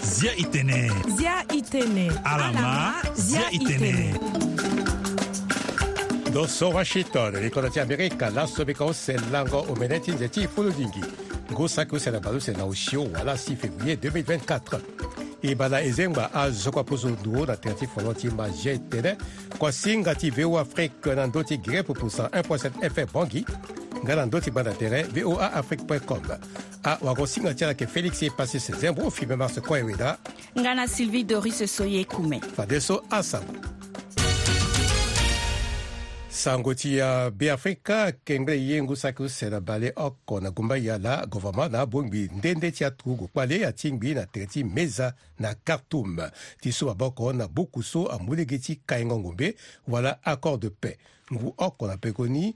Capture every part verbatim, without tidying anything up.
Zia itene. Zia itene. Alama, zia itene. Ndo so Washington, li kodro ti Amerika, laso mbi ka use lango omene ti nze ti fulu dingi. Ngu saki use na baleuse na osio wala six février deux mille vingt-quatre. E baa na ezengba azo kua poso nduru na tere ti folon ti ma zia itene. Kua singa ti V O A Afrique na ndö ti Guinée pupu cent un point sept F M Bangui. Nga na ndö ti gbanda tere V O A Afrique point com. Awagosinga ti ala ayeke Félix Epasis Zembo, Fimé Mars Koeweda. Nga na Sylvie Doris Soye Kume. Fadeso asango. Sango ti, ah, Beafrika, kengbe ye ngu saki use na baleoko na gumba yala, gouvernement na abongbi nde nde ti aturugu kpale atingbi na tere ti Meza na Khartoum. Ti su maboko na buku so amu lege ti kaingo ngombe wala accord de paix. Ngu oko na pekoni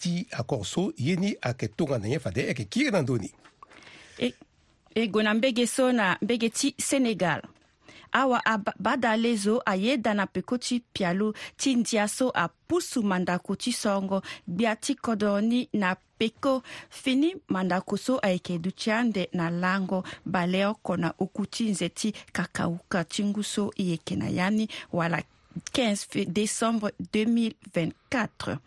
ti accord so ye ni ayeke tongana nyen fade ayeke kiri na ndö ni. E, e gue na mbege so na mbege ti Sénégal. Awa aba-, badalezo ayeda na peko ti pialo ti ndia so apusu mandako ti sorongo gbia ti kodro ni na peko. Fini mandako so ayeke duti ande na lango baleoko na oku ti nze ti kakauka ti ngu so e yeke na ya ni wala quinze fe-, décembre deux mille vingt-quatre.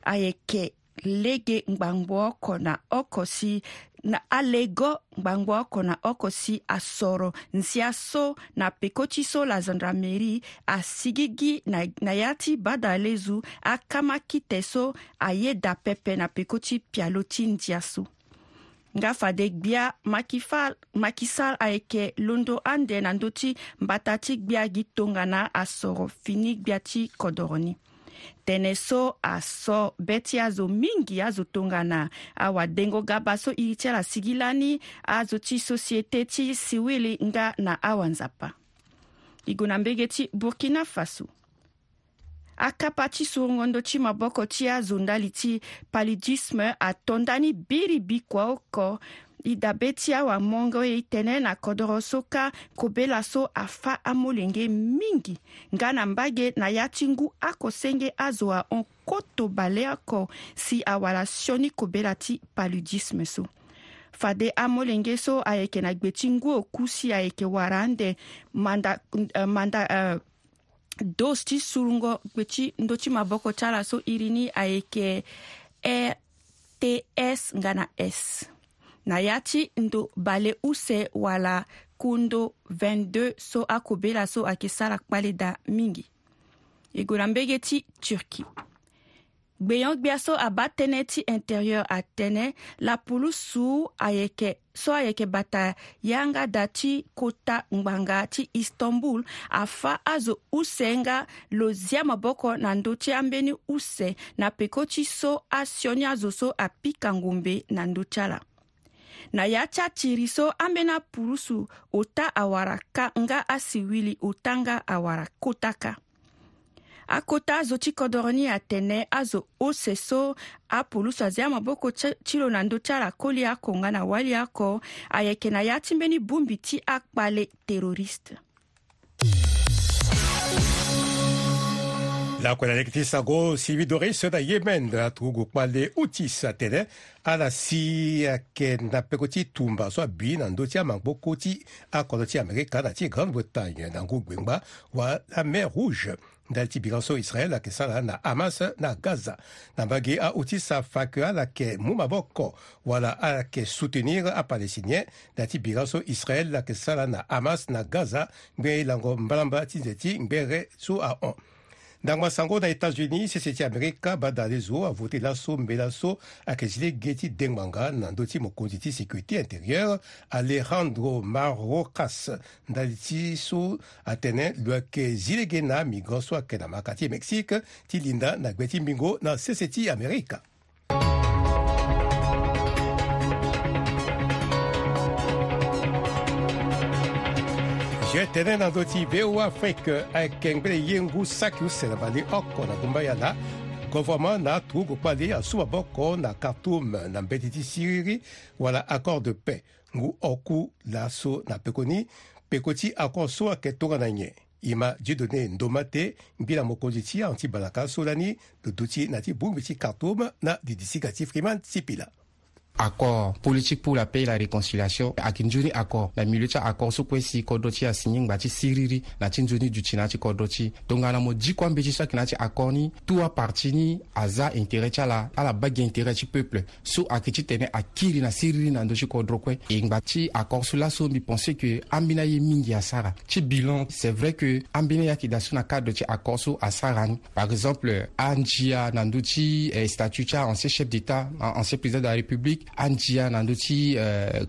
Ayeke lege ngbangbo oko na oko si na alego ngbangbo oko na oko si asoro nzia so na peko ti so la gendarmerie asigigi na, na ya ti badalezo akama kite so ayeda pepe na peko ti pialo ti ndia so. Nga fade gbia Macky Fall, Macky Sall ayeke londo ande na ndö ti mbata ti gbia gi tongana asoro fini gbia ti kodoro ni. Tene so aso be ti azo mingi azo tongana awadengo gaba so iri ti ala sigi lani, azo ti société ti siwili nga na awanzapa. E gue na mbege ti Burkina Faso. Akapa ti surungo ndö ti maboko ti azo ndali ti paludisme ato ndani biribi kua oko. E dabe ti awamongo e tene na kodoro so kâ kobela so afâ amolenge mingi. Nga na mbage na ya ti ngu oko senge azo ahon koto baleoko si awara sioni kobela ti paludisme so. Fade amolenge so ayeke na gbe ti ngu oku si ayeke wara ande manda, eh, manda, eh, dose ti surungo gbe ti ndö ti maboko ti ala so iri ni ayeke R T S nga na S. Na ya ti ndo bale use wala kundo vingt-deux so akobela so ayeke sara kpale daa mingi. E gue na mbege ti Turquie. Gbenyo-gbia so abaa tënë ti intérieur atene lapulusu ayeke so ayeke bata yanga da ti kota ngbanga ti Istanbul afâ azo use nga lo zia maboko na ndö ti ambeni use na peko ti so asioni azo so apika ngombe na ndö ti ala. Na ya ti atiri so ambeni apulusu ota awara kâ nga asiwili ota nga awara kota kâ. Akota azo ti kodoro ni atene azo use so apulusu azia maboko ti, ti lo na ndö ti ala koli oko nga na wali oko ayeke na ya ti mbeni bongbi ti akpale terroriste. Lakue na lege ti sago, Sylvie Doris na Yémen, aturugu kpale Houthis atene ala si ayeke na peko ti tumba so abi na ndö ti amaboko ti akodro ti Amerika na ti Grande-Bretagne na ngu gbengba wala mer Rouge. Ndali ti bira so Israël ayeke sara na Hamas na Gaza. Na mbage a-Houthis afa ke ala yeke mu maboko wala ala yeke soutenir aPalestinien na ya ti bira so Israël ayeke sara na Hamas na Gaza, ngbene lango mbalambala ti nze ti ngbere so ahon. Ndangba sango na États-Unis, sese ti Amerika, badalezo avote laso mbela so ayeke zi lege ti dengbanga na ndö ti mokonzi ti sécurité intérieure, Alejandro Mayorkas, ndali ti so atene lo yeke zi lege na amigrant so ayeke na maka ti Mexique ti linda na gbe ti mbingo na sese ti Amerika. Zia tene na ndö ti V O A Afrique, ayeke ngbene ye ngu saki use na baleoko na gumba yala. Gouvernement na aturugu kpale asu maboko na Khartoum na mbeti ti siriri wala accord de paix. Ngu oku laso na pekoni, peko ti accord so ayeke tongana nyen? E ma Dieudonné Ndomate, ngbila mokonzi ti ahon ti balaka so lani lo duti na ti bongbi ti Khartoum na didisiga ti Freeman Sipila. Accord politique pour la paix et la réconciliation ayeke nzoni accord na milieu ti accord so kue si kodro ti e asigné ngba ti siriri na ti nzoni duti na ya ti kodro ti e. Tongana mo diko ambeti so ayeke na ya ti accord ni, tout aparti ni aza intérêt ti ala, ala baa gi intérêt ti peuple so ayeke titene akiri na siriri na ndö ti kodro kue. E ngba ti accord so laso mbi pense que ambeni aye mingi asara. Ti bilan, c'est vrai que ambeni aye ayeke daa so na cadre ti accord so asara ni. Par exemple, andia na ndö ti statut ti a ancien chef d'état, ancien président de la république, andia na ndö ti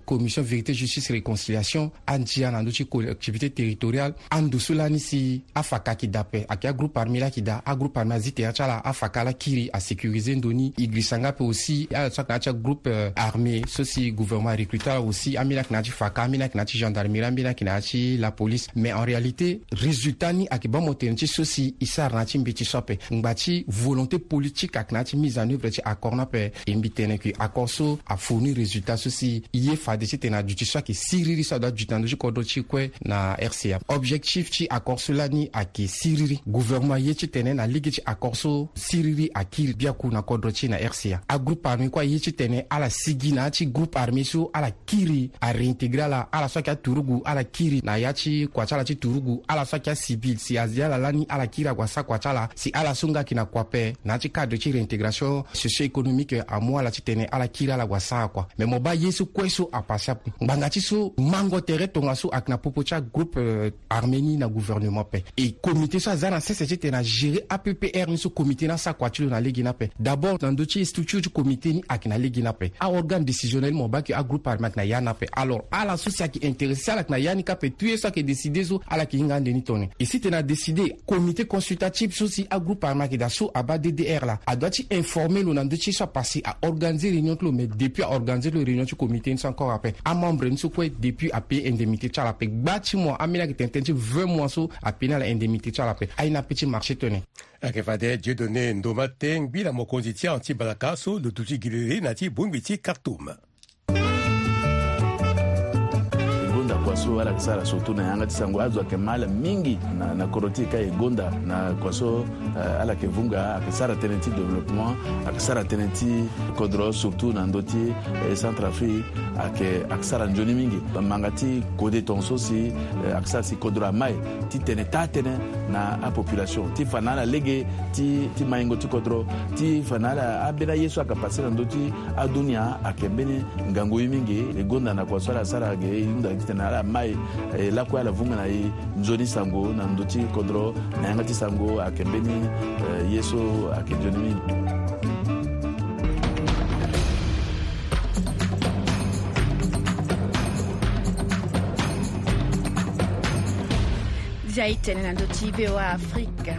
commission vérité justice réconciliation, andia na ndö ti collectivité territoriale. Ando so lani si afaka ayeke daa ape, ayeke agroupe armé laa ayeke daa. Agroupe armé azi tere ti ala, afaka laa akiri asécurisé ndo ni. E girisa nga ape aussi ala so ayeke na ya ti agroupe armé so si gouvernement arecruté ala aussi, ambeni ayeke na ya ti faka, ambeni ayeke na ya ti gendarmerie, ambeni ayeke na ya ti lapolice. Mais en réalité résultat ni ayeke baa mo tene ti so si e sara na ya ti mbeti so ape. Ngba ti volonté politique ayeke na ya ti mise en œuvre ti accord ni ape. E mbi tene ke accord so afournir résultat so si e ye fade titene aduti so ayeke siriri so adoit aduti na ndö ti kodro ti e kue na RCA. Objectif ti accord so lani ayeke siriri. Gouvernement aye titene na lege ti accord so siriri akiri biaku na kodro ti e na RCA. Agroupe armé kue aye titene ala sigi na ya ti groupe armé so ala kiri aréintégré ala. Ala so ayeke aturugu ala kiri na ya ti kua ti ala ti turugu. Ala so ayeke acivil si azi ala lani ala kiri ague asara kua ti ala. Si ala so nga ayeke na kua ape, na ya ti cadre ti réintégration socio-économique amu ala titene ala kiri ala ague asara kua. Mais mo baa ye so kue so apase ape. Ngbanga ti so mango tere tongaso ayeke na popo ti agroupe armé ni na gouvernement ape. E comité so aza na sese titene agéré APPR ni so comité ni asara kua ti lo na lege ni ape. D'abord na ndö ti structure ti comité ni ayeke na lege ni ape. Aorgane décisionnel ni mo baa ke agroupe armé ayeke na ya ni ape. Alors ala so si ayeke intéressé ala yeke na ya ni kâ ape. Tout ye so ayeke décidé so ala yeke hinga ande ni tongana e si tene adécidé comité consultatif so si agroupe armé ayeke daa so abaa DDR laa adoit ti informé lo na ndö ti ye so apase. Aorganisé réunion ti lo, mais depuis aorganisé ti lo réunion ti comité ni so encore ape, amembre ni so kue depuis apaye indemnité ti ala ape. Gba ti mois ambeni ayeke tene tënë ti vingt mois so apaye ni ala indemnité ti ala ape. Aye ni ape ti marché tongana. Ayeke fade Dieudonné Ndoma Tengbi na mokonzi ti ahon ti balaka so lo duti gi lele na ya ti bongbi ti Khartoum. E gonda kua so ala yeke sara surtout na yanga ti sango, azo ayeke ma ala mingi na, na kodro ti e kâ. E gonda na kua so ala yeke vunga, ayeke sara tënë ti développement, ayeke sara tënë ti kodro surtout na ndö ti Centrafrique. Ayeke, ayeke sara nzoni mingi. Manga ti kode tongaso si ayeke sara si kodro amai ti tene taa tënë na apopulation ti fa na ala lege ti, ti maingo ti kodro, ti fa na ala ambeni aye so ayeke pase na ndö ti adunia ayeke mbeni ngangu ye mingi. E gonda na kua so ala sara ge e hunda titene ala mai, e lakue ala vunga na e nzoni sango na ndö ti kodro na yanga ti sango ayeke mbeni, e, ye so ayeke nzoni mingi. Dia e tene na ndö ti VOA Afrika.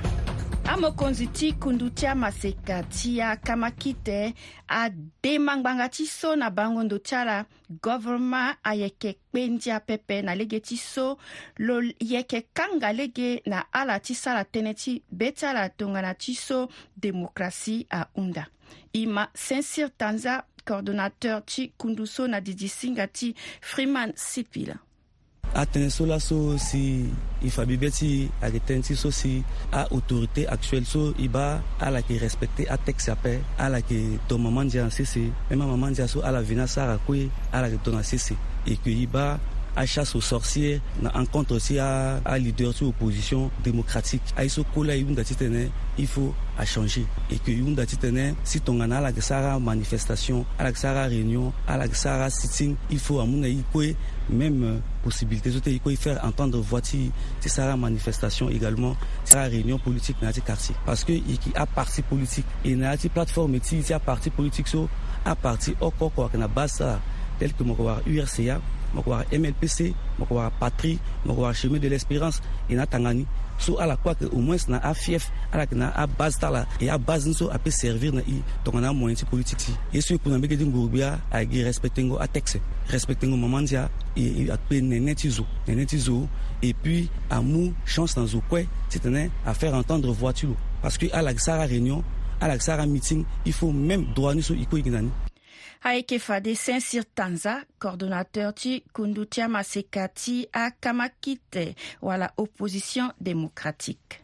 Amokonzi ti kundu ti amaseka ti akamakite adema ngbanga ti so na bango ndo ti ala, governement ayeke kpe ndia pepe na lege ti so lo yeke kanga lege na ala ti sara tënë ti be ti ala tongana ti so démocratie ahunda. E ma Sincir Tanza, coordonnateur ti kundu so na didi singa ti Freeman Sipila. Atënë so laso si e fa bibe ti e ayeke tënë ti so si a-autorité actuelle so e baa ala yeke respecté atexte ape, ala yeke don mama ndia na sese. Même amama ndia so ala veni asara kue ala yeke don na sese. Et que e baa achasse aux sorcières na encontre ti aleader ti opposition démocratique. Aye so kue laa e hunda titene il faut achangé. Et que e hunda titene si tongana ala yeke sara manifestation, ala yeke sara réunion, ala yeke sara sitting, il faut amu na e kue même possibilité so ti e kue e faire entendre voix ti e, ti sara manifestation également, ti sara réunion politique na ya ti quartier. Parce que e yeke aparti politique, e na ya ti plateforme ti e ti aparti politique so, aparti oko oko ayeke na base ti ala, tel que mo yeke wara URCA, mo yeke wara MLPC, mo yeke wara Patrie, mo yeke wara Chemin de l'Espérance. E na atanga ni so ala kue ayeke au moins na afief, ala yeke na abase ti ala. E abase ni so ape servir na e tongana amoyen ti politique ti e. Ye so e ku na mbege ti nguru-gbia ayeke gi respectengo atexte, respectengo mama ndia, e, e akpe nene ti zo, nene ti zo. Et puis amu chance na zo kue titene afaire entendre voix ti lo. Parce que ala yeke sara réunion, ala yeke sara meeting, il faut même droit ni so e kue e gi na ni. Ayeke fade Sincir Tanza, coordonnateur ti kundu ti amaseka ti akamakite wala opposition démocratique.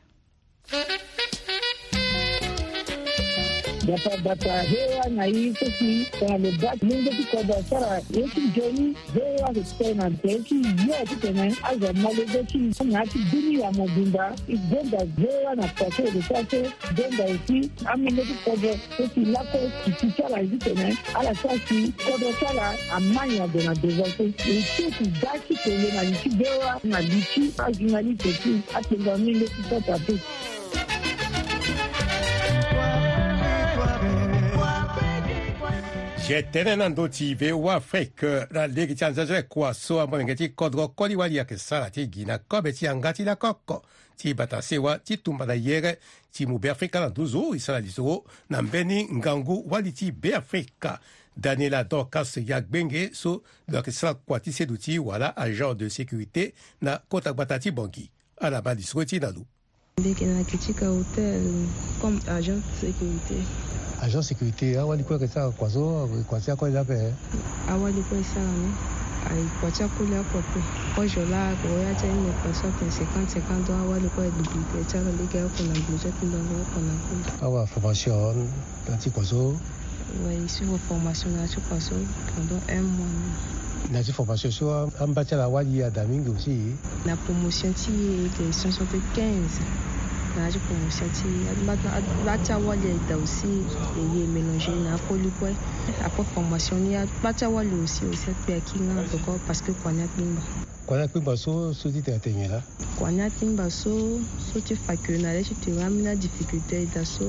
Gbata gbata V O A na e so si tongana lo baa ti lenge ti kodro asara ye ti nzoni. V O A ayeke tene na tere ti yo titene azo amolenge ti na ya ti bini ya mobimba. E gonda V O A na kua so e yeke sara so. Gonda aussi amolenge ti kodro so si lakue ti ti ti ala ye titene ala sara si kodro ti ala ama nyen ague na devant so. E ti ti da ti kele na li ti V O A na li ti ajournaliste ti atengo amolenge ti Centrafrique. Zi tënë na ndö ti V O A Afrique na lege ti anzenze kua so amolenge ti kodro koli wali ayeke sara ti gi na kobe ti yanga ti lakoko ti bata sewa ti tumba na yere ti mu Beafrika na nduzu. E sara lisoro na mbeni ngangu wali ti Beafrika, Daniela Dorcas Yagbenge, so lo yeke sara kua ti seduti wala agent de sécurité na kota gbata ti Bangui. Ala baa lisoro ti na lo. Mbi yeke na Kitika Hotel comme agent de sécurité. Agent sécurité, awali kue ayeke sara kua so, kua ti akoli ape? Awali kue e sara ni. Aye kua ti akoli oko ape. Kozo laa ako ya ti aye ni, kua so atene cinquante cinquante ans, awali kue aye dupliqué ti ala lege oko na gbe ti atindanga oko na akoli. Awa formation na ya ti kua so? Ouais, e suivre formation na ya ti kua so pendant un mois ni. Na ya ti formation so, a- amba ti ala awali ada mingi aussi? Na promotion ti e ayeke cent soixante-quinze. Na ya ti promotion ti e, amba ti awali ayeke daa aussi. E ye e mélanger na akoli kue. Après formation ni, amba ti awali aussi, aussi akpe aki nga na toko parce que kua ni akpengba. Kua ni akpengba so, so ti tene atene nyen laa? Kua ni akpengba so, so ti fa ke na le ti tere ambeni adifficulté e daa so,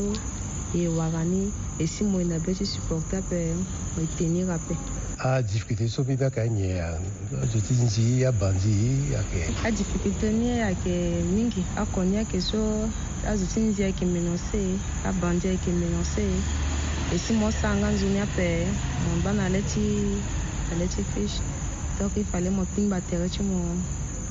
e wara ni, e si mo e na be ti supporter ape, mo e tenir ape. Adifficulté so mbi baa ka nyen? Azo ti nzi, abandi ayeke? Adifficulté ni ayeke mingi. Oko ni ayeke so, azo ti nzi ayeke menacé, abandi ayeke menacé. E si mo sara nga nzoni ape, mo baa na le ti, na le ti fiche. Donc il fallait mo kpingba tere ti mo.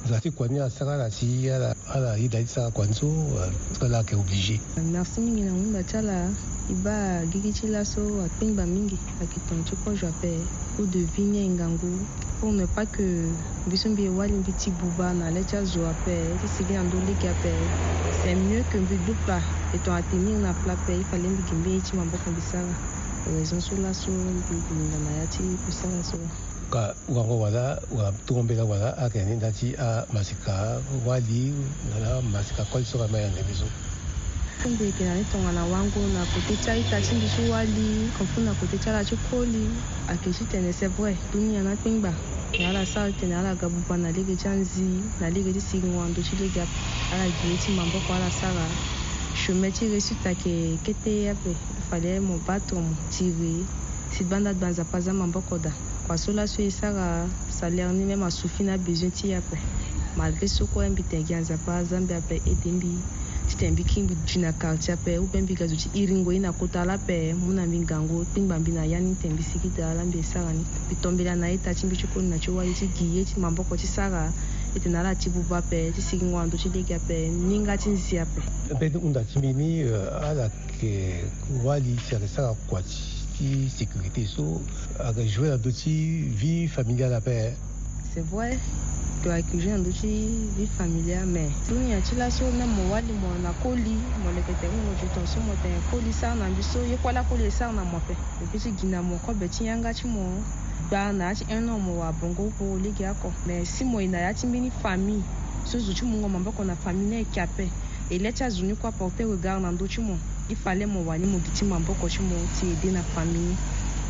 Nzala ti kua ni asara ala si ala, ala yeda ti sara kua ni so, euh, parce que ala yeke obligé. Merci mingi na ngunda ti ala. E baa gigi ti laso akpingba mingi, ayeke tongana ti kozo ape. Coût de vie ni ayeke ngangu. Pour ne pas que mbi so mbi ye wali mbi ti buba na le ti azo ape, ti sigi na ndö lege ape, c'est mieux que mbi du plat. E tongana tenir na plat ape, il fallait mbi gi mbeni ye ti maboko mbi sara. Raison so laso mbi linga na ya ti kusala so. Ka wango wala, wala tongo mbela wala, ayeke ni nda ti amasika wali, wala amasika koli so ka ma yande mbi so. Mbi yeke na ni tongana wango na kote ti a-ita ti mbi ti wali, comme na kote ti ala ti koli. Ayeke titene c'est vrai, dunia ni akpengba. Me ala sara titene ala ga buba na lege ti anzi, na lege ti siringo na ndö ti lege ape. Ala gi ye ti maboko ala sara. Chemin ti réussite ayeke kete ape. Il fallait mo battre, mo tirer. Si gbanda gba Nzapa aza maboko daa. Kua so laso e sara salaire ni même asuffit na besoin ti e ape. Malgré so kue mbi tene gi Nzapa aza mbi ape aide mbi. Titene mbi kiri mbi gi na quartier ape, ou bien mbi ga zo ti iringo ye na kota laa ape, mu na mbi ngangu, kpengba mbi na ya ni titene mbi sigi daa laa mbi e sara ni. Mbi tombela na a-ita ti mbi ti koli na ti wali ti gi ye ti maboko ti sara. Titene ala ti buba ape, ti siringo na ndö ti lege ape, ninga ti nzi ape. Mbeni hunda ti mbi ni, euh, ala yeke wali si ayeke sara kua ti, ti sécurité so, ayeke jouer na ndö ti vie familiale ape. C'est vrai, to ayeke jouer na ndö ti vie familiale, mais dunia ti laso même mo wali mo na koli, mo leke tere mo du temps so mo tene koli sara na mbi so, ye kue laa koli e sara na mo ape. Mo peut ti gi na mo kobe ti yanga ti mo. Gba na ya ti un an mo wara bongo pour lege oko. Mais si mo ye na ya ti mbeni famille so zo ti mungo maboko na famille ni ayeke ape. E le ti azo ni kue aporter regard na ndö ti mo. Il fallait mo wani mo gi ti maboko ti mo ti aider na famille ni.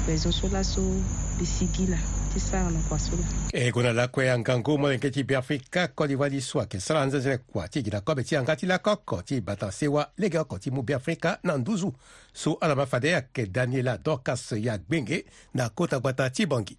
Raison so laso mbi sigi laa ti sara na kua so laa. E gue na lakue angangu molenge ti Beafrika koli wali so ayeke sara anzenze kua ti gi na kobe ti yanga ti lakoko ti bata sewa lege oko ti mu Beafrika na nduzu. So ala ma fade ayeke Daniela Dorcas Yagbenge na kota gbata ti Bangui.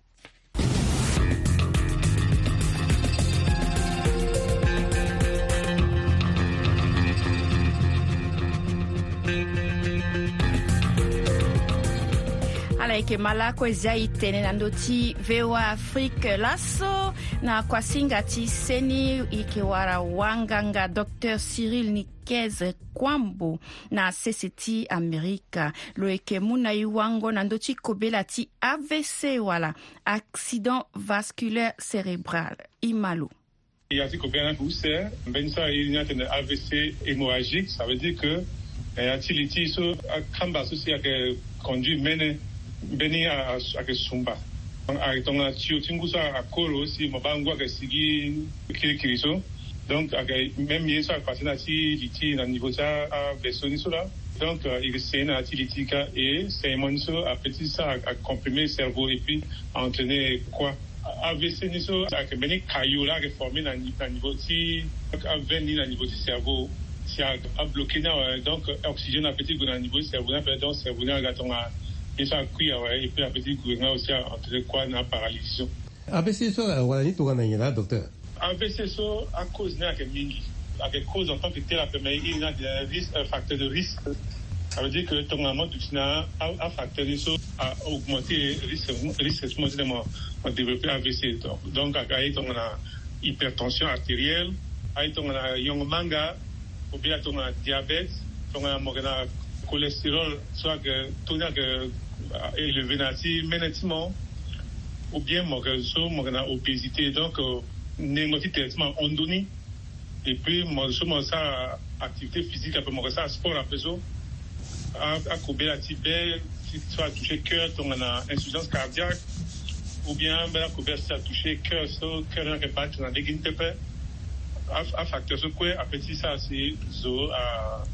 Ala yeke ma lakue zia e tene na ndö ti V O A Afrique laso na kuasinga ti seni e yeke wara wanganga docteur Cyril Niquez Kwambo na sese ti Amerika. Lo yeke mu na e wango na ndö ti kobela ti A V C wala accident vasculaire cérébral. E ma lo. E article vingt use, mbeni sara e ni atene A V C hémorragique, ça veut dire que Ya ti li ti so akamba so si ayeke conduire mene mbeni ayeke sumba. Ayeke tongana tio ti ngu so akoro si mo baa ngu ayeke sigi kirikiri so. Donc ayeke même ye so ayeke pase na ti li ti na niveau ti aveso ni so laa. Donc il sene na ya ti li ti ka e saignement ni so ape ti sara acomprimer cerveau et puis entraîner kua. Avc ni so ayeke mbeni caillot laa ayeke former na niveau ti aveine ni na niveau ti cerveau. Si abloquer ni awe donc oxygène ape ti gue na niveau ti cerveau ni ape donc cerveau ni aga tongana ye so akui awe et puis ape ti gue nga aussi entraîner kua na paralysie so. Avc so awara ni tongana nyen laa docteur? Avc so acause ni ayeke mingi. Ayeke cause en tant que tel ape mais il na de risque facteur de risque. Ça veut dire que tongana mo duti na afacteur ni so a augmenter risque risque ti mo ti de mo développer avc. Donc ayeke aye tongana hypertension artérielle, aye tongana yongo manga, ou bien tongana diabète, tongana mo yeke na cholestérol so ayeke taux ni ayeke élevé na ya ti mene ti mo, ou bien mo yeke so mo yeke na obésité donc nengo ti tere ti mo ahon ndoni. Et puis mo so mo sara activité physique ape mo yeke sara sport ape so akobela ti be ti so atoucher cœur tongana insuffisance cardiaque, ou bien mbeni akobela ti atoucher cœur so cœur ni ayeke bat na lege ni pepe. Afacteur so kue ape ti sara si zo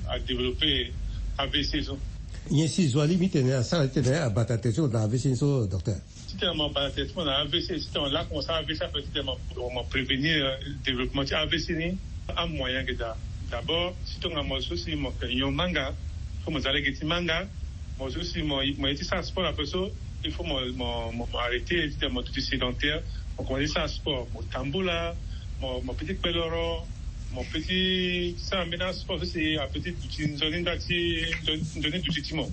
adévelopper avc so. Nyen si zo alingbi titene asara titene abata tere ti lo na avc ni so docteur? Titene mo bata tere ti mo na avc titene mo laa mo sara avc ape titene mo prévenir développement ti avc ni. Amoyen ayeke daa. D'abord si tongana mo so si mo yeke nyon manga, fo mo za lege ti manga. Mo so si mo ye ti sara sport ape so il faut mo mo mo arrêter titene mo duti sédentaire. Mo komanse ti sara sport mo tambula, mo mo pe ti kpe loro, mo pe ti sara mbeni asport so si ape ti duti nzoni nda ti nzoni duti ti mo.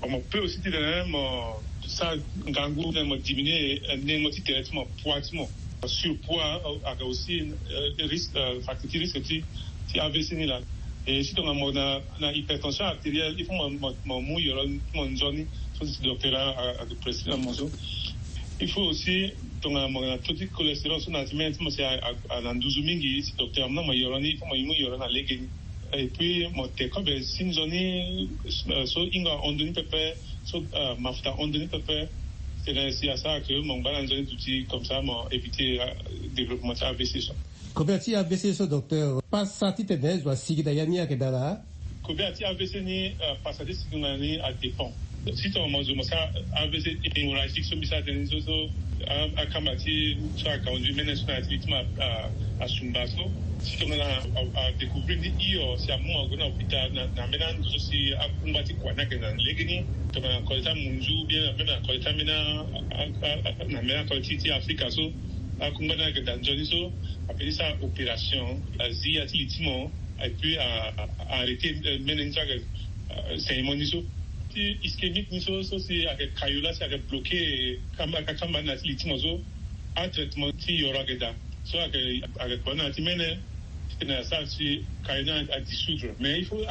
Mo pe aussi titene mo sara ngangu titene mo diminuer nengo ti tere ti mo, poids ti mo. Surpoids ayeke aussi risque facteur ti risque ti ti avc ni laa. Et si tongana mo na na hypertension artérielle il faut mo mo mo mu yoro ti mo nzoni. So si docteur ayeke prescrire na mo so. Il faut aussi tongana mo na taux ti cholestérol so na ti mene ti mo si a na nduzu mingi si docteur amu na mo yoro ni il faut mo mu yoro na lege ni. Et puis mo te kobe si nzoni so hingo ahon ndoni pepe, so mafuta ahon ndoni pepe. Titene si asara ke mo ngba na nzoni duti comme ça mo éviter développement ti avc so. Kobela ti avc so docteur, pasa titene zo asigi na ya ni ayeke daa laa? Kobela ti avc ni pasa ti sigi na ni adépend. Si tongana mo zo mo sara avc hémorragique so mbi sara tënë ni so so akamba ti so aconduire mene so na ya ti victime asumba so, si tongana adécouvrir ni hio si amu ague na hôpital na mbeni ando so si akungba ti kua ni ayeke na lege ni. Tongana kode ti amunzu ou bien même na kode ti ambeni na mbeni akode ti afrika so akungba ni ayeke daa nzoni so ape ti sara opération azi ya ti li ti mo. Et puis arrêter mene ni so ayeke saignement ni so ti ischémique ni so so si ayeke caillot laa si ayeke bloquer kamba akamba ni na ti li ti mo so atraitement ti yoro ayeke daa. So ayeke ayeke kua ni na ya ti mene titene asara si caillot ni adissoudre mais il faut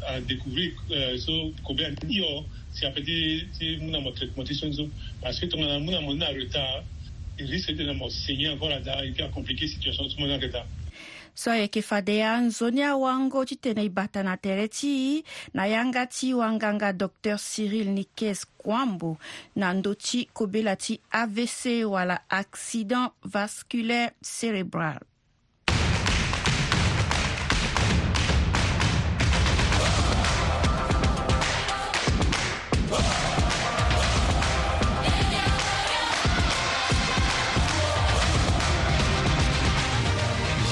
adécouvrir so kobela ni hio si ape ti ti mu na mo traitement ti so ni so. Parce que tongana amu na mo ni na retard il risque titene mo saigner encore adaa et puis acompliquer situation ti mo ni ayeke daa. So ayeke fade anzoni awango titene e bata na tere ti e na yanga ti wanganga docteur Cyril Nikes Kwambo na ndö ti kobela ti avc wala accident vasculaire cérébral.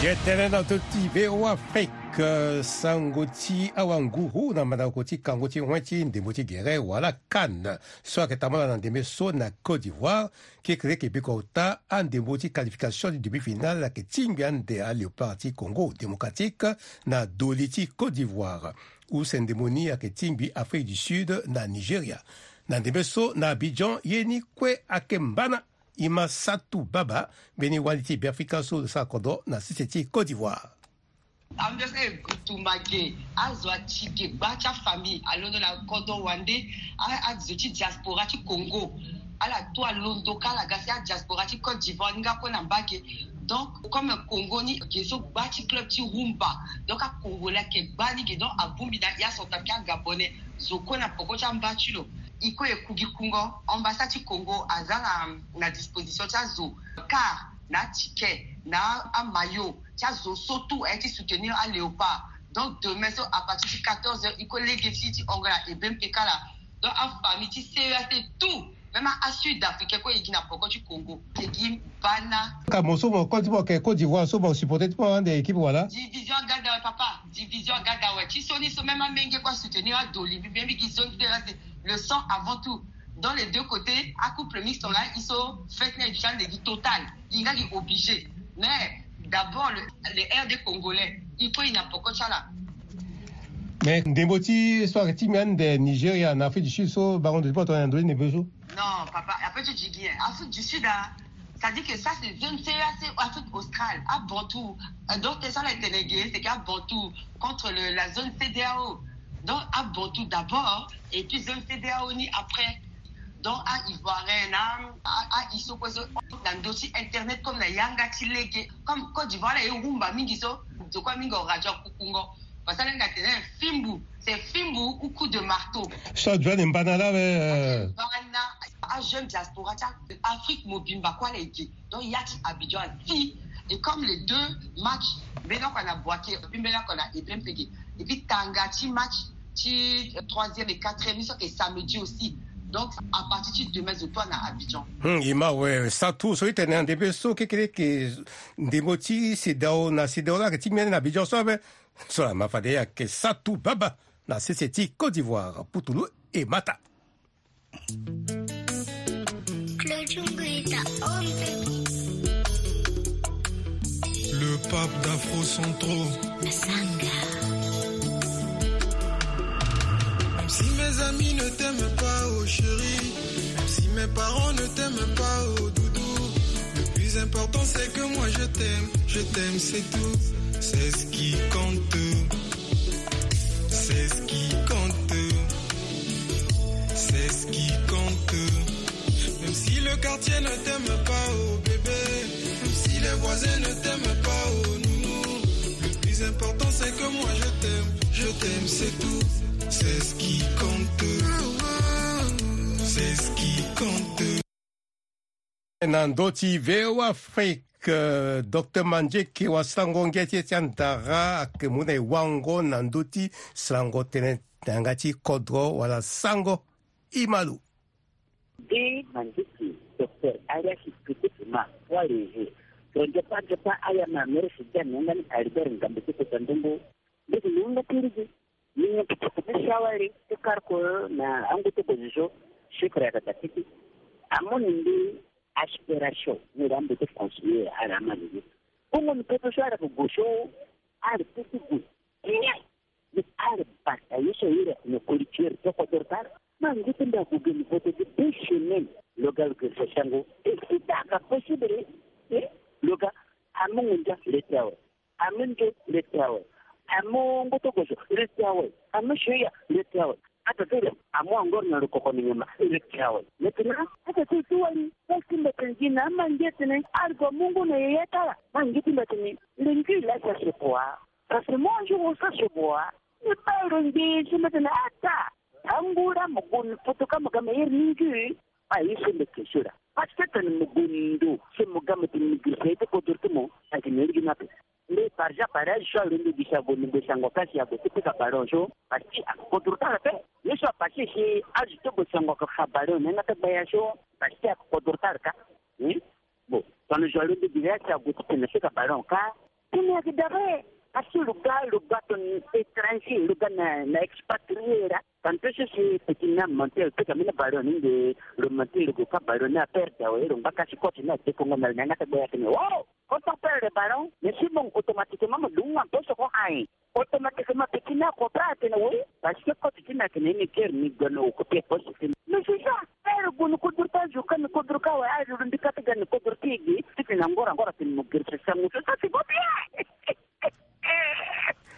Jetene na to ti V O Afrique, sango ti awanguru na mandako ti kango ti wen ti ndembo ti gere wala CAN so ayeke tambula na ndembe so na Côte d'Ivoire. Kekereke biko ota andembo ti qualification ti demi-finale ayeke tingbi ande aLéopard ti Congo Démocratique na doli ti Côte d'Ivoire. Use ndembo ni ayeke tingbi Afrique du Sud na Nigeria. Na ndembe so na Abidjan ye ni kue ayeke mbana. Ima Satu Baba mbeni wali ti Beafrika so lo sara kodro na sese ti Côte d'Ivoire. Ambiance e tumba ge, azo ati ge gba ti afamille alondo na kodro wande. Azo ti diaspora ti Congo Ala to alondo ka ala ga si adiaspora ti Côte d'Ivoire ni nga kue na mbage. Donc comme Congo ni ge so gba ti club ti rumba, donc acongolais ayeke gba ni ge, donc abongbi na ya centrafricain, agabonais, zo kue na poko ti amba ti lo. E kue e ku gi kungo, ambassade ti Congo aza na, na disposition ti azo, car na aticket, na amayo ti azo so tout aye ti soutenir aléopard. Donc demain so à partir ti quatorze heures e kue lege ti ti Angola e bempe kala. Donc afamille ti C E A C tout, même asud africain kue e gi na poko ti Congo e gi bana. Ka mo so mo koli ti mo ayeke Côte d'Ivoire so mo supporter ti mo ande équipe wala? Division aga da awe papa, division aga da awe. Ti so ni so même amenge kue asoutenir adoli mbi mbi gi zone C E A C, le sang avant tout. Dans les deux côtés, acouple mixte là, ils sont fait na éducation de total. Il a dit obligé. Mais d'abord, le, le R D congolais, il faut une apoko chala. Mais ndembo ti so ayeke ti mbi ande Nigeria na Afrique du Sud so bango ndo ti poto na ndo ti ndembo so. Non papa, après tu dis bien Afrique du Sud, hein. Ça dit que ça c'est zone C E A C, Afrique australe, à Bantou. Euh, donc ça là, c'est que à Bantou contre le, la zone C D A O. Donc à Bantou d'abord et puis zone C D A O ni après. Donc à Ivoirien, à, à Isoko, na ndo ti internet comme na yanga ti lege, comme Côte d'Ivoire là, et rumba mingi so, de quoi mingi radio kukungo. Parce que là, c'est un fimbu, c'est fimbu ou coup de marteau. So joane mbana la we. Mbana, à jeune diaspora, Afrique mobimba quoi les gars. Donc il y a ti Abidjan si, et comme les deux matchs, mbeni oko na Bouaké, et puis mbeni oko na Ibrahim Pege, et puis tanga ti match ti troisième et quatrième, so ayeke samedi aussi. Donc à partir ti demain zo toi na Abidjan. Hmm, e ma we, sa tout so e tene na ndembe so kekereke, ndembo ti C D A O na C D A O la ayeke ti mbi ande na Abidjan so ape. So la ma fade e ayeke sa tout baba na sese ti Côte d'Ivoire, Putulu e mata. Le pape d'Afro Centro. Même si mes amis ne t'aiment pas, oh chérie, même si mes parents ne t'aiment pas, oh doudou, le plus important c'est que moi je t'aime, je t'aime, c'est tout, c'est ce qui compte. C'est ce qui compte. C'est ce qui compte. Même si le quartier ne t'aime pas, oh bébé, même si les voisins ne t'aiment pas, oh nounou, le plus important c'est que moi je t'aime, je t'aime, c'est tout. C'est ce qui compte. C'est ce qui compte. Na ndö ti V O A Afrique, euh, Docteur Mandieke wasango ngia ti e ti andara ayeke mu na e wango na ndö ti sarango tënë na yanga ti kodro wala sango. E ma lo. Nde Mandieke, Docteur Arias Pete Pema, Poids Léger, tongaso nzapa nzapa aya ma Merisi Dia na yanga ni Albert Ngambe ti kota ndongo. Ndeke ni yanga ti rigi. Ni nyen ti tokoni ti sawari ti kar ko na angu ti opposition, chiffre ayeke daa tete. Amu ni mbi aspiration ni daa mbi ti conseiller ala ama lele. Kongo ni poto so ala yeke gue so ala ti ti gue. Ni ala bata ye so aye ala yeke na koli ti ala ti kodro ti ala. Ma ngu ti mbi ague ge ni vote ti deux semaines. Lo ga lo gue so sango. E si ta aka possible. E lo ga amu ngu ndia le ti awe. Amu nde le ti awe. Amu ngoto gozo le ti awe. Amu soya le ti awe. Ata ti lo amu angor na lo koko ni nyama le ti awe. Maintenant ata ti ti wali. Parce que mbe tene gi na ama nge tene argo mungu na yeye tala. Ma nge ti mbe tene le ngi la sa se boa. Parce que mo anjo wo sa se boa. Ni ba lo nge si mbe tene ata. Angura mo gon foto ka mo ga me yer ni ngi. A ye so mbe ke sura. Parce que tene mo gon ndo se mo ga mo tene mo giri sa ye ti kodro ti mo. Agi na iri gi na pe. Mbe par exemple pare azo so alondo gi si ague ni gue sango ka si ague ti pika ballon so parce que ake kodro ti ala pe. Ye so apase si azo ti gue sango ake fa ballon na yanga ti gbaya so parce que ake kodro ti ala ka. Bon, tongana zo alondo gi si ague ti tene pika ballon ka. Tene ake dabe. Parce que lo ga lo ga tongana étranger lo ga na na expatrié la. Tantôt so si petit na mentir pika mbeni ballon ni nde lo mentir lo gue ka ballon ni aperde awe lo ngba ka si coach ni adekongo na lo na yanga ti gbaya tene oh. Quand on perd le ballon, mais si bon, automatiquement, me dunga un peu ce qu'on a. Automatiquement, petit n'a compris, atene oui, parce que quand tu n'as que ni ker ni gano au côté poste. Mais c'est ça, faire gunu kudurta juka ni kudurka wa ayi rundi kata gani kudurti gi, titi na ngora ngora tin mo girse sangu. Ça c'est pas bien.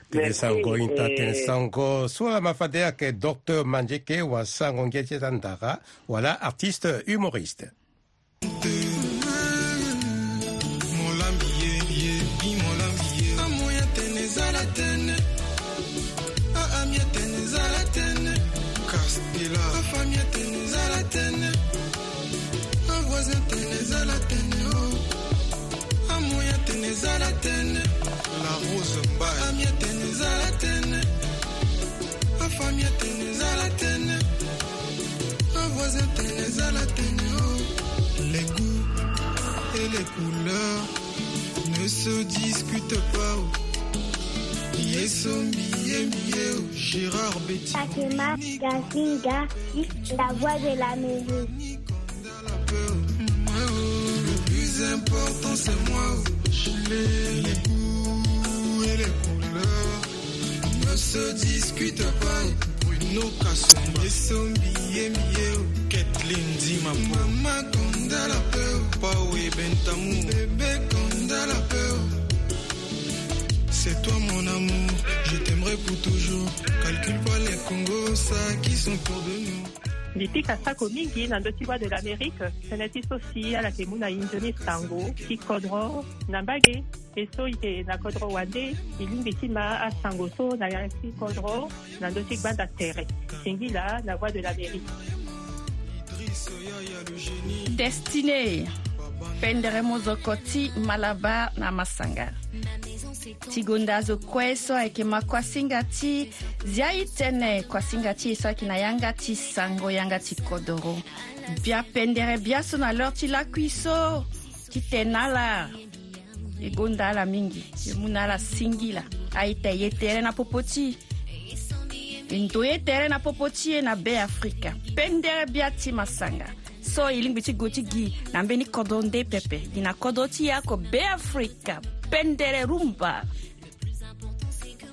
Tene sango inta, tene sango so lama fade ayeke docteur Mandieke, wa sango ngia ti eza ndara, wala artiste humoriste. Molambi ye, ye, i molambi ye. Amoya tene zala tene. A, a, mia tene zala tene. Castela. Afa mia tene zala tene. Avoisin tene zala tene, oh. Amoya tene zala tene. La Rose Mbaye. Amia tene zala tene. Afa mia tene zala tene. Avoisin tene zala tene, oh. Les goûts et les couleurs ne se discutent pas, oh. Ye sombi ye mbi ye, oh. Gérard Betty. Fatima Gazinga, la voix de l'Amérique. Le plus important, c'est moi. Les goûts et les couleurs ne se discutent pas. Bruno Kasumba. Ye sombi ye mbi ye, oh. Kathleen Dimapou. Mama Konda la peur. Pao Ebentamu. Bébé Konda la peur. C'est toi mon amour, je t'aimerai pour toujours. Calcule pas les Congo, ça qui sont autour de nous. Mbi pika sako mingi na ndö ti Voix de l'Amérique, tënë ti so si ala yeke mu na e nzoni sango ti kodro na mbage. E so e yeke na kodro wande, e lingbi ti ma asango so na ya ti kodro na ndö ti gbanda tere. Singila na Voix de l'Amérique. Destiné, pendere mozoko ti Malabar na Masanga. Ti gonda azo kue so ayeke ma kuasinga ti zia e tënë, kuasinga ti e so ayeke na yanga ti sango, yanga ti kodoro. Bia pendere biaso na l'heure ti lakui so ti tene na ala. E gonda ala mingi, e mu na ala singila. A-ita, e ye tere na popo ti e. E ndo ye tere na popo ti e na Be Afrika. Pendere bia ti Masanga. So e lingbi ti gue ti gi na mbeni kodro nde pepe. Gi na kodro ti e oko Be Afrika. Pendere rumba.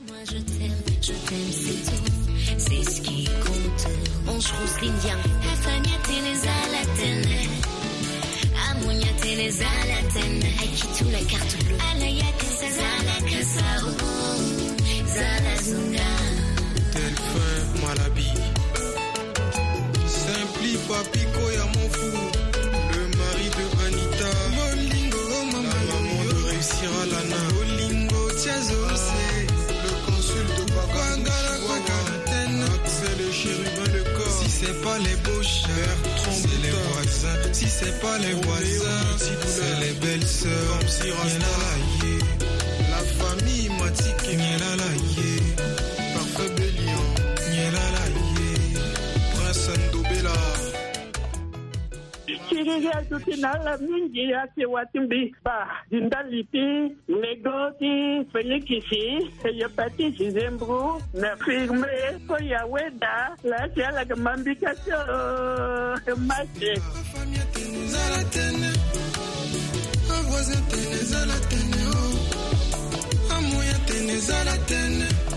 Moi je t'aime, je t'aime, c'est tout, c'est ce qui compte. Ange Rose Lindia. Afa mia tene zala tene. Amoya tene zala tene. Aiki tout la carte bleue. Ala ya tene zala kasa, oh, zala zunga. Delphin Malabi. Simpli Papi Koya mon fou. Le mari de Anita. Lolingo, oh, maman, la maman de réussir à Lana. Lolingo, Tiazo, c'est le consul de Baba. Kwangala, kwangala, tena. C'est le chérubin, le corps. Si c'est pas les beaux chers, c'est les voisins. Si c'est pas les voisins, c'est les belles-sœurs. Comme si Rasta. Nyelala ye. La famille Matike. Nyelala ye. Parfait Bélion. Nyelala ye. Prince Ndobela. Siriri aduti na ala mingi, ake wati mbi ba di ndali ti Nego ti Félix, Hépatite, Zembro, na Firme, Koya Weda, la si ala ga mambika tio, Mase.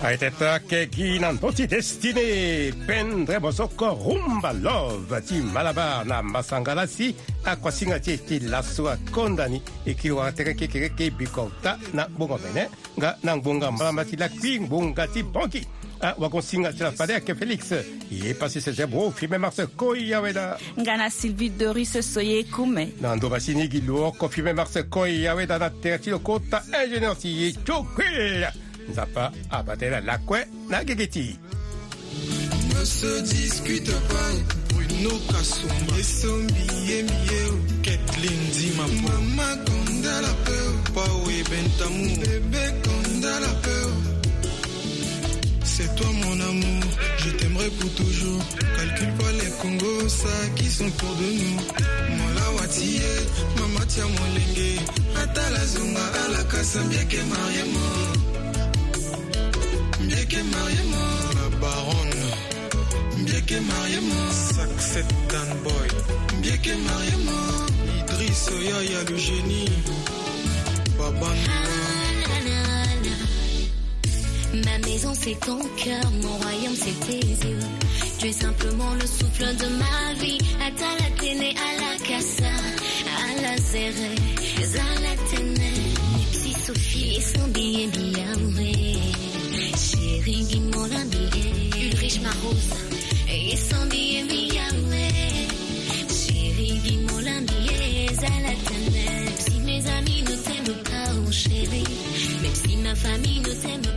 Aye teta kegi na ndö ti Destiné, pendere mozoko rumba love ti Malabar na Masanga la si akuasinga ti e ti laso akonda ni. E kiri wara tere kekereke bikota na gbongo mene. Nga na ngbonga mbala ma ti lakui ngbonga ti bongi. Ah, wagon singa ti la fade ake Félix. Ye pasi se zebro Firme Mars Koya Weda. Nga na Sylvie Doris Soye Kume. Na ndo basi ni gi lo oko Firme Mars Koya Weda na tere ti lo kota ingénieur ti ye Tiokuil. Nzapa abate la lakue na gigi ti. Ne se discute pas, Bruno Kasumba. Ye sombi ye mbi ye, oh. Kathleen Dimapou. Mama Konda la peur. Pao Ebentamu. Bébé Konda la peur. C'est toi mon amour, je t'aimerai pour toujours. Calcule pas les Congo, ça qui sont autour de nous. Mon lawatiye, mama tia molenge. Atala zunga ala kasa mbieke mariemo. Mbieke mariemo. La baronne. Mbieke mariemo. Saxet Dan Boy. Mbieke mariemo. Idriss Yaya le génie. Baba. Ma maison c'est ton cœur, mon royaume c'est tes yeux. Tu es simplement le souffle de ma vie. Atala tene ala kasa, ala zere, zala tene. Nipsi Sophie, son billet, billet, oui. Ringi molambi e, Ulrich Marosa. E sandi e mi yawe. Chéri gi molambi e, zala tene. Si mes amis ne t'aiment pas, oh chéri. Même si ma famille ne t'aime